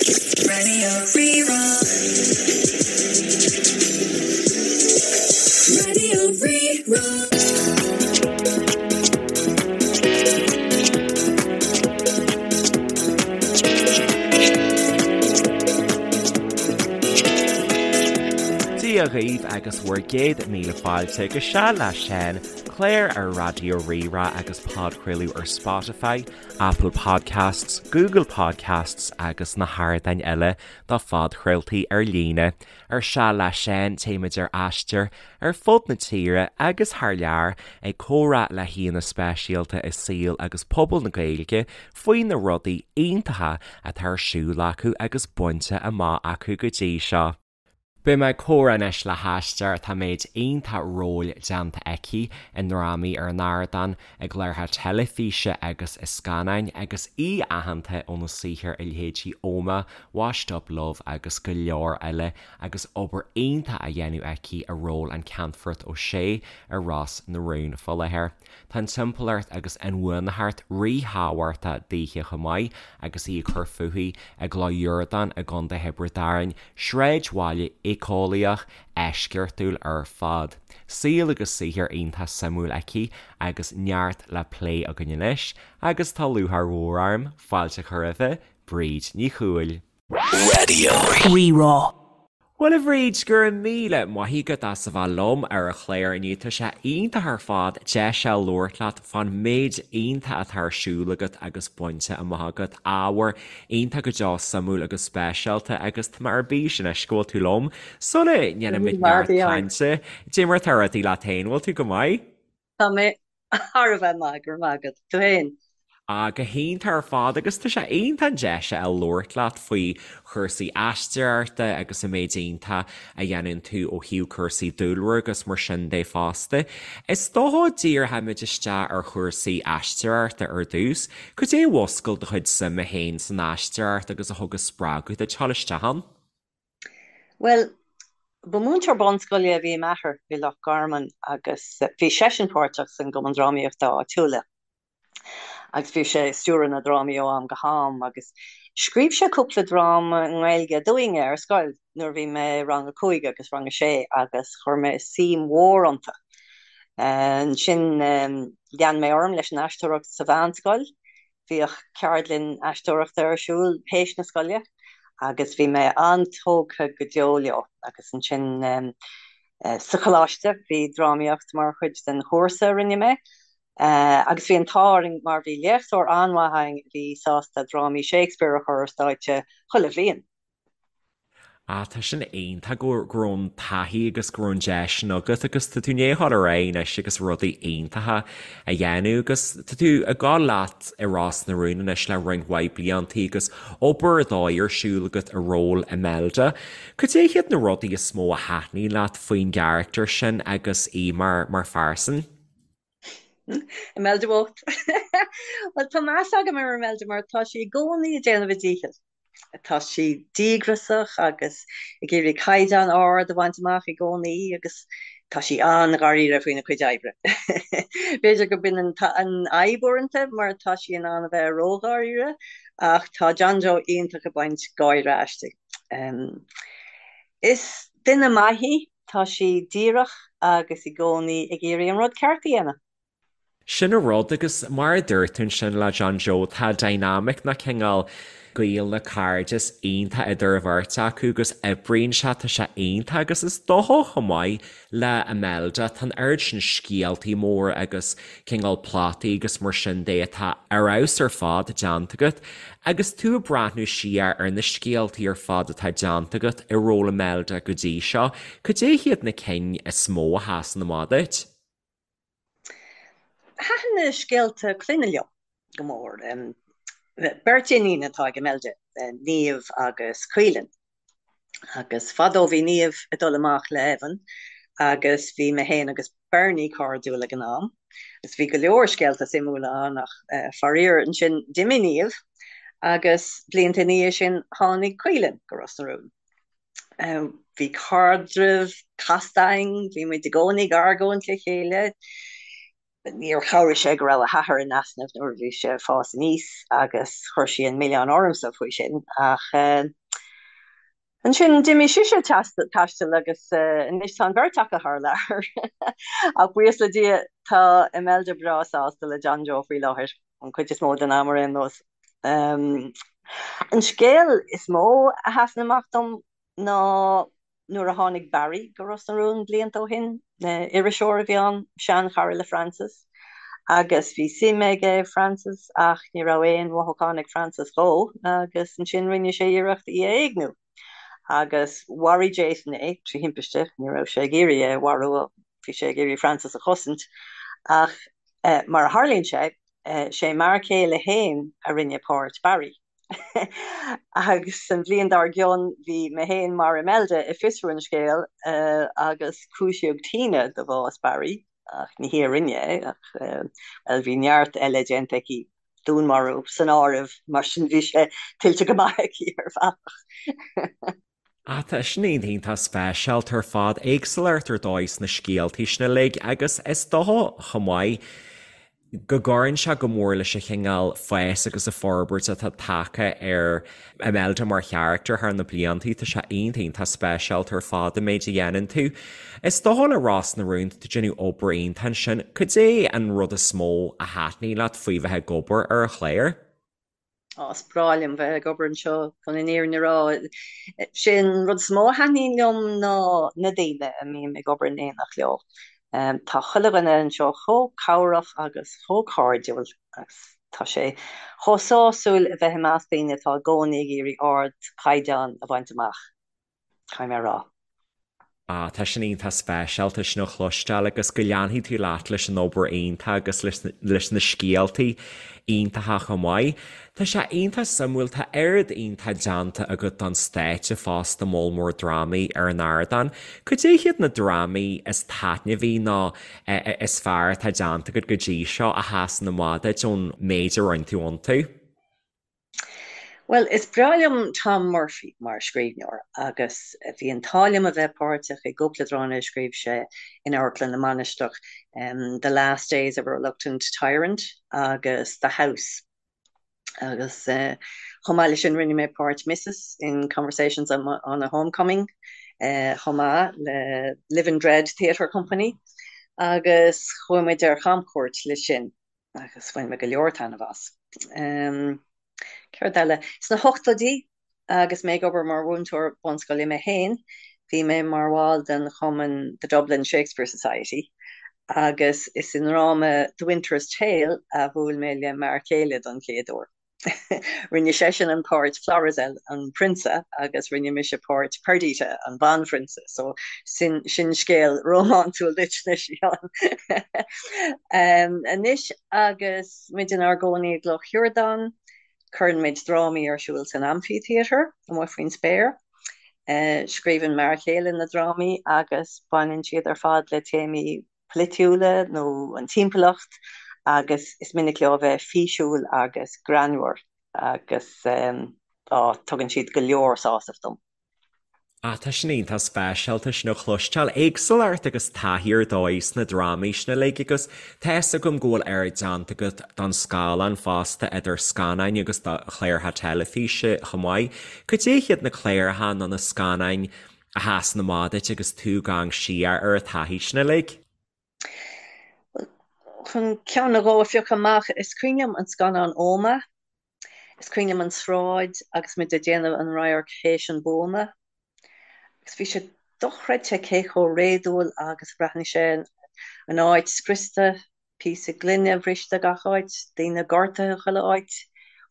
Radio Rí-Rá. Radio Rí-Rá. Dia dhaoibh agus bhur gcéad míle fáilte go Seal le Seán, clár ar Raidió Rí-Rá agus podchraoladh ar Spotify, Apple Podcasts, Google Podcasts agus na hardáin eile do phodchraoltaí ar líne. Ar Seal le Seán téimid ar aistear ar fud na tíre agus thar lear ag comhrá le haíonna speisialta i saol agus pobal na Gaeilge faoi na rudaí iontacha atá ar siúl acu agus bainte amach acu go dtí seo. Beidh mé ag comhrá anois le haisteoir atá méid iontach róil déanta aici i ndrámaí ar an ardán, i gcláracha teilifíse agus i scannáin agus í aitheanta óna saothar i leithéidí Ómaigh, Washed Up Love agus go leor eile agus obair iontach á dhéanamh aici i ról an Ceannfort O'Shea i Ros na Rún fá láthair. Tá an timpeallacht agus inbhuanaitheacht ríthábhachtach daoithe chomh maith agus í ag cur fúithi i gCloich Dhiurdáin i gContae Thiobraid Árann, sráidbhaile éiceolaíoch eisceachtúil ar fad. Saol agus saothar iontach suimiúil aici agus neart le plé againn anois agus tá lúcháir mhór orm fáilte a chur roimhe, Bríd Ní Chumhaill. Radio. Rí-Rá. Bhuel a Bhríd, go raibh míle maith agat as a bheith liom ar an chlár inniu. Tá sé iontach ar fad deis a labhairt leat fán méid iontach atá ar siúl agat agus bainte amach agat. Ábhar iontach go deo suimiúil agus speisialta agus tá mé ar bís anois go bhfuil tú liom. Sula ndéanaimid neart cainte, cad é mar atá rudaí leat féin, bhfuil tú go maith? Tá mé thar a bheith maith, go raibh maith agat. Tú féin? Ah, go hiontach ar fad agus tá sé iontach an deis a fháil labhairt leat faoi chúrsaí aisteoireachta agus an méid iontach a dhéanann tú ó thaobh cúrsaí dúlra agus mar sin de fosta. Is dócha díreoimid isteach ar chúrsaí aisteoireachta ar dtús. Cad é a mhúscail do chuid suime féin san aisteoireacht agus a thug an spreagadh duit dul isteach ann? Bhuel, ba mhúinteoir bunscoile a bhí i m'athair i Loch Garman agus bhí seisean páirteach san gcumann drámaíochta áitiúla agus bhí sé ag stiúradh na drámaí ó am go ham agus scríobh sé cúpla dráma i nGaeilge dúinne ar scoil nuair a bhí mé i rang a cúig agus rang a sé agus chuir mé suim mhór iontu. Ansin lean mé orm leis an aisteoireacht sa mheánscoil Bhíodh ceardlann aisteoireachta ar siúl théis na scoile agus bhí mé an-tógtha go deo leo agus ansin sa choláiste bhí drámaíocht mar chuid den chúrsa a rinne mé agus bhí an t-ádh orainn mar bhí léachtóir an-mhaith againn a bhí sásta drámaí Shakespeare a chur ar stáitse chuile bhliain. Ah, tá sin iontach go go raibh an taithí agus go raibh an deis sin agat agus tá tú i ndiaidh a dhul ar aghaidh anois agus rudaí iontacha a dhéanamh agus tá tú ag dul leat i Ros na Rún anois le roinnt mhaith bliantaí agus obair ar dóigh ar siúl agat i ról Imelda. Cad é hiad na rudaí is mó a thaitníonn leat faoin gcarachtar sin agus í mar mar phearsan? Imelda bhocht. Bhuel, tá meas agam ar Imelda mar tá sí i gcónaí ag déanamh a díchill. Tá sí díograsach agus ag iarraidh caighdeán ard a bhaint amach i gcónaí agus tá sí an-dháiríre faoina cuid oibre. B'fhéidir go b'in an fhadhb uaireanta mar tá sí in ann a bheith ródháiríre ach tá John Joe iontach ag baint gáire aisti. Is duine maith í, tá sí díreach agus i gcónaí ag iarraidh an rud ceart a dhéanamh. Sin an rud, agus mar a dúirt tú ansin le John Joe, tá dynamic nó cineál gaol nó cairdeas iontach idir an bheirt acu agus oibríonn sé, tá sé iontach agus is dócha chomh maith le Imelda, tá an oiread sin scéaltaí móra agus cineál plotaí agus mar sin de atá ar fheabhas ar fad déanta agat agus tú ag breathnú siar ar na scéaltaí ar fad atá déanta agat i ról Imelda go dtí seo, cad é hiad na cinn is mó a sheasann amach duit? Thaitin na scéalta clainne liom go mór. Beirt iníon atá ag Imelda, Niamh agus Caoilinn. Agus fadó bhí Niamh ag dul amach le Evan agus bhí mé féin agus Bernie cairdiúil ag an am. Agus bhí go leor scéalta suimiúla ann ach faraor ansin d'imigh Niamh agus blianta ina dhiaidh sin tháinig Caoilinn go Ros na Rún. Bhí caidreamh casta againn, bhí muid i gcónaí ag argóint le chéile. Níor chabhraigh sé go raibh a hathair in easnamh nuair a bhí sé ag fás aníos agus chuir sí an milleán ormsa faoi sin ach ansin d'imigh sise ag taisteal agus anois tá an bheirt acu thar lear. Ach buíochas le Dia tá Imelda breá sásta le John Joe faoi láthair, an chuid is mó den am ar aon nós. An scéal is mó a sheasann amach dom ná nuair a tháinig Barry go Ros na Rún blianta ó shin. Iriseoir a bhí ann, seanchara le Frances, agus bhí suim aige i Frances ach ní raibh aon mhothúchán ag Frances dhó agus ansin rinne sé iarracht í a éigniú agus mharaigh Jason é trí thimpiste, ní raibh sé ag iarraidh é a mharú, bhí sé ag iarraidh Frances a chosaint ach mar a tharlaíonn sé, sé m'fhear céile féin a rinne páirt Barry. Agus an bhliain dár gcionn bhí mé féin mar Imelda i Fiosrú an Scéal agus cúisíodh Tina do bhás Barry, ach ní hí a rinne é, ach, bhuel, bhí neart eile déanta aici, dúnmharú san áireamh, mar sin bhí sé tuillte go maith aici ar bhealach. Ah, tá sin iontach speisialta ar fad, éagsúlacht ar dóigh sna scéaltaí sin uilig agus is dócha chomh maith go gcuireann sé go mór leis an chineál fás agus an forbairt atá tagtha ar Imelda mar charachtar thar na bliantaí. Tá sé iontach iontach speisialta ar fad an méid a dhéanann tú. Is dócha le Ros na Rún, tá tú ag déanamh obair iontach ansin. Cad é an rud is mó a thaitníonn leat faoi bheith ag obair ar an chlár? Ó, is breá liom bheith ag obair anseo, chun an fhírinne a rá. Sé an rud is mó a thaitníonn liom ná na daoine a mbím ag obair in éineacht leo. Tá chuile dhuine anseo chomh cabhrach agus chomh cairdiúil agus tá sé chomh sásúil a bheith i measc daoine atá i gcónaí ag iarraidh ardchaighdeán a bhaint amach. Caithfidh mé a rá. Ah, tá sin iontach speisialta sin a chloisteáil agus go leanfaidh tú leat leis an obair iontach agus leis leis na scéaltaí iontacha chomh maith. Tá sé iontach suimiúil, tá oiread iontach déanta agat don stáitse fosta, moll mór drámaí ar an ardán. Cad é hiad na drámaí is taitneamhaí nó is fearr atá déanta agat go dtí seo a sheasann amach duit ón méid a rinne tú iontu? Bhuel, is breá liom Tom Murphy mar scríbhneoir agus bhí an t-ádh liom a bheith páirteach i gcúpla dráma a scríobh sé in Amharclann na Mainistreach, The Last Days of a Reluctant Tyrant agus The House. Agus chomh maith leis sin rinne mé páirt Mrs in Conversations on a Homecoming chomh maith le Live in Dread Theatre Company agus chuaigh muid ar chamchuairt leis sin. agus bhain mé go leor taitneamh as. Céard eile? Sna hochtóidí, agus mé ag obair mar mhúinteoir bunscoile mé féin, bhí mé mar bhall den chumann The Dublin Shakespeare Society agus is i ndráma The Winter's Tale a bhuail mé le m'fhear céile don chéad uair. Rinne seisean an páirt Florizel, an prionsa, agus rinne mise páirt Perdita, an bhanphrionsa, so sin sin scéal rómánsúil duit anois, a Sheáin. Anois agus muid inár gcónaí i gCloch Shiurdáin, cuireann muid drámaí ar siúl san Amphitheatre, amuigh faoin spéir. Scríobhann m'fhear chéile na drámaí agus baineann siad ar fad le téamaí polaitiúla nó an timpeallacht agus is minic leo a bheith físiúil agus greannmhar agus á, tugann siad go leor sásaimh dom. Ah, tá sin iontach speisialta sin a chloisteáil. Éagsúlacht agus taithí ar dóigh sna drámaí sin uilig agus tá fhios agam go bhfuil oiread déanta agat don scáileán fosta idir scannáin agus do chláracha teilifíse chomh maith. Cad é hiad na cláracha nó na scannáin a sheasann amach duit agus tú ag amharc siar ar an taithí sin uilig? Bhuel, chun ceann nó dhó a phiocadh amach, is cuimhin liom an scannán Omagh. Is cuimhin liom an tsráid agus muid ag déanamh an radharc théis an buama. Agus bhí sé dochreidte cé chomh réadúil agus a bhreathnaigh sé, an áit scriosta, píosa gloine bhriste gach áit, daoine gortaithe chuile áit.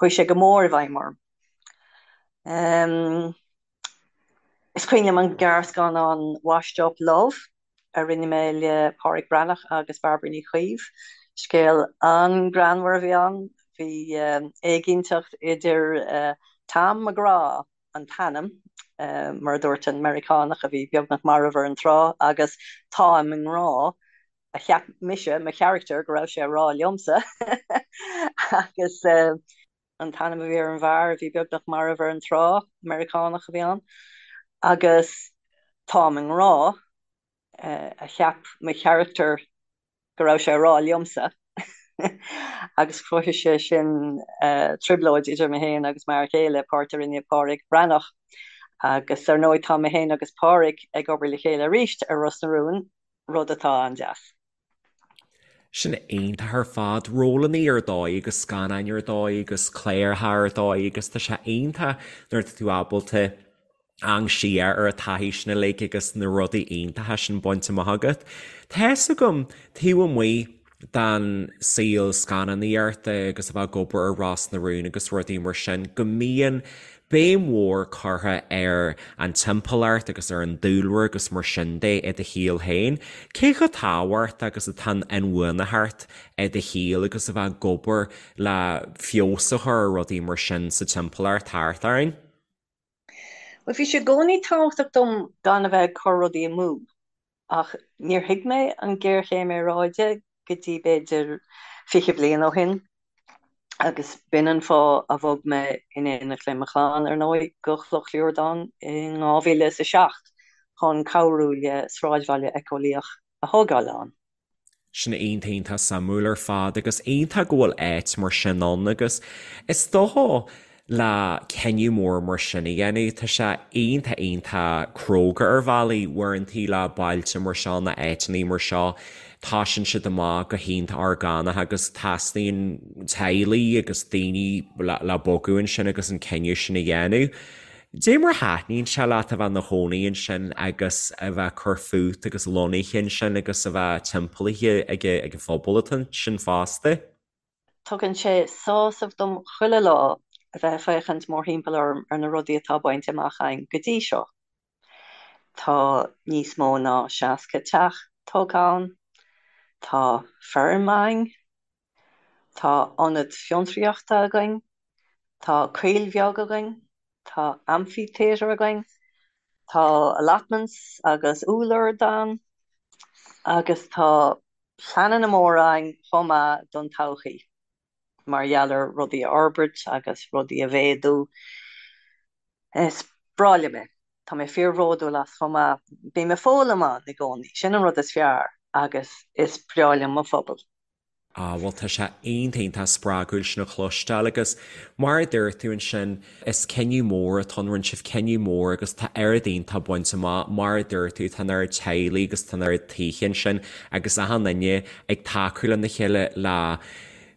Chuaigh sé go mór i bhfeidhm orm. Is cuimhin liom an gearrscannán Washed Up Love a rinne mé le Pádraic Breathnach agus Bairbre Ní Chaoimh. Scéal an-ghreannmhar a bhí ann. Bhí éiginnteacht idir Tom McGraw, an t-ainm, mar a dúirt an Meiriceánach a bhí beagnach marbh ar an trá, agus Táim i ngrá, a cheap mise, mo charachtar, go raibh sé a rá liomsa. Agus. an t-ainm a bhí ar an bhfear a bhí beagnach marbh ar an trá, Meiriceánach a bhí ann, agus táim i ngrá, a cheap mo charachtar. go raibh sé ag rá liomsa agus chruthaigh sé sin trioblóid idir mé féin agus m'fhear céile, páirt a rinne Pádraic Breathnach. Agus ar ndóigh tá mé féin agus Pádraic ag obair le chéile arís ar Ros na Rún, rud atá an-deas. Sin iontach ar fad. Rólanna ar dóigh agus scannáin ar dóigh agus cláracha ar dóigh agus tá sé iontach nuair atá tú ábalta amharc siar ar an taithí sin uilig agus na rudaí iontacha sin bainte amach agat. Tá fhios agam, taobh amuigh den saol scannánaíochta agus a bheith ag obair ar Ros na Rún agus rudaí mar sin, go mbíonn béim mhór curtha ar an timpeallacht agus ar an dúlra agus mar sin de i do shaol féin. Cé chomh tábhachtach agus atá an inbhuanaitheacht i do shaol agus a bheith ag obair le feabhas a chur ar rudaí mar sin sa timpeallacht thart orainn? Bhuel, bhí sé i gcónaí tábhachtach dom gan a bheith ag cur rudaí amú, ach níor thuig mé an ghéarchéim aeráide go dtí b'fhéidir 20 bliain ó shin, agus b'in an fáth a bhog mé in éineacht le mo chlann, ar ndóigh, go Cloch Riordáin in 2007 chun cabhrú le sráidbhaile éiceolaíoch a thógáil ann. Sin iontach iontach suimiúil ar fad agus iontach go bhfuil áit mar sin ann agus is dócha le cinneadh mór mar sin a dhéanamh tá sé iontach iontach cróga ar bhealaí uaireantaí le bailte mar seo nó áiteanna mar seo tosaíonn siad amach go hiontach orgánach agus teastaíonn teaghlaigh agus daoine le bogadh ansin agus an cinneadh sin a dhéanamh. Dé mar a thaitníonn sé leat a bheith ina chónaí ansin agus a bheith ag cur fút agus lonnaithe ansin agus a bheith timpeallaithe ag an phobal atá ansin fosta? Tugann sé sásamh dom chuile lá a bheith ag féachaint mórthimpeall orm ar na rudaí atá bainte amach againn go dtí seo. Tá níos mó ná 60 teach tógtha ann, tá feirm againn, Tá ionad fiontraíochta againn, tá coill bheag againn, tá amphitheatre againn, tá allotments agus úllord ann agus tá pleananna móra againn chomh maith don todhchaí mar gheall ar rudaí a fhorbairt agus rudaí a mhéadú. Is breá liom é. Tá mé fíorbhródúil as chomh maith. Bím ag foghlaim ann i gcónaí, sin an rud is fearr agus is breá liom mo phobal. Ah, bhuel tá sé iontach iontach spreagúil sin a chloisteáil agus mar a dúirt tú ansin, is cinneadh mór atá ann, rinne sibh cinneadh mór agus tá oiread iontach bainte amach, mar a dúirt tú, tá an oiread teaghlaigh agus tá an oiread tithe ansin agus achan duine ag tacú lena chéile le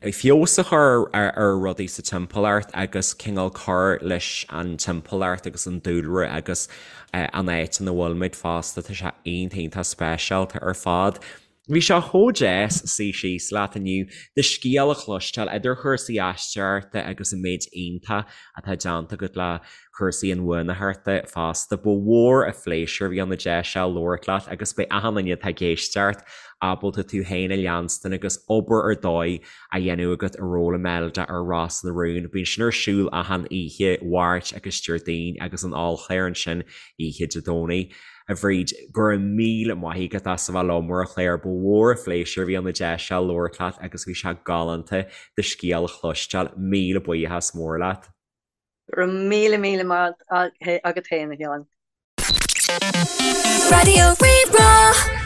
feabhas a chur ar rudaí sa timpeallacht agus cineál cur leis an timpeallacht agus an dúlra agus an áit ina bhfuilimid fosta, tá sé iontach iontach speisialta ar fad. Bhí sé chomh deas suí síos leat inniu, do scéal a chloisteáil, idir chúrsaí aisteoireachta agus an méid iontach atá déanta agat le cúrsaí inbhuanaitheachta fosta. Ba mhór an phléisiúr a bhí ann an deis seo labhairt leat agus beidh achan duine atá ag éisteacht ábalta tú féin a leanstan agus obair ar dóigh á dhéanamh agat i ról Imelda ar Ros na Rún. Bíonn sin ar siúl achan oíche Mháirt agus Déardaoin agus an ollchlár ansin oíche Dé Domhnaigh. A Bhríd, go raibh míle maith agat as a bheith liom ar an chlár. Ba mhór an phléisiúr a bhí ann an deis seo labhairt leat agus bhí sé galánta do scéal a chloisteáil. Míle buíochas mór leat. Go raibh míle míle maith agat féin, a Sheáin. Raidió Rí-Rá.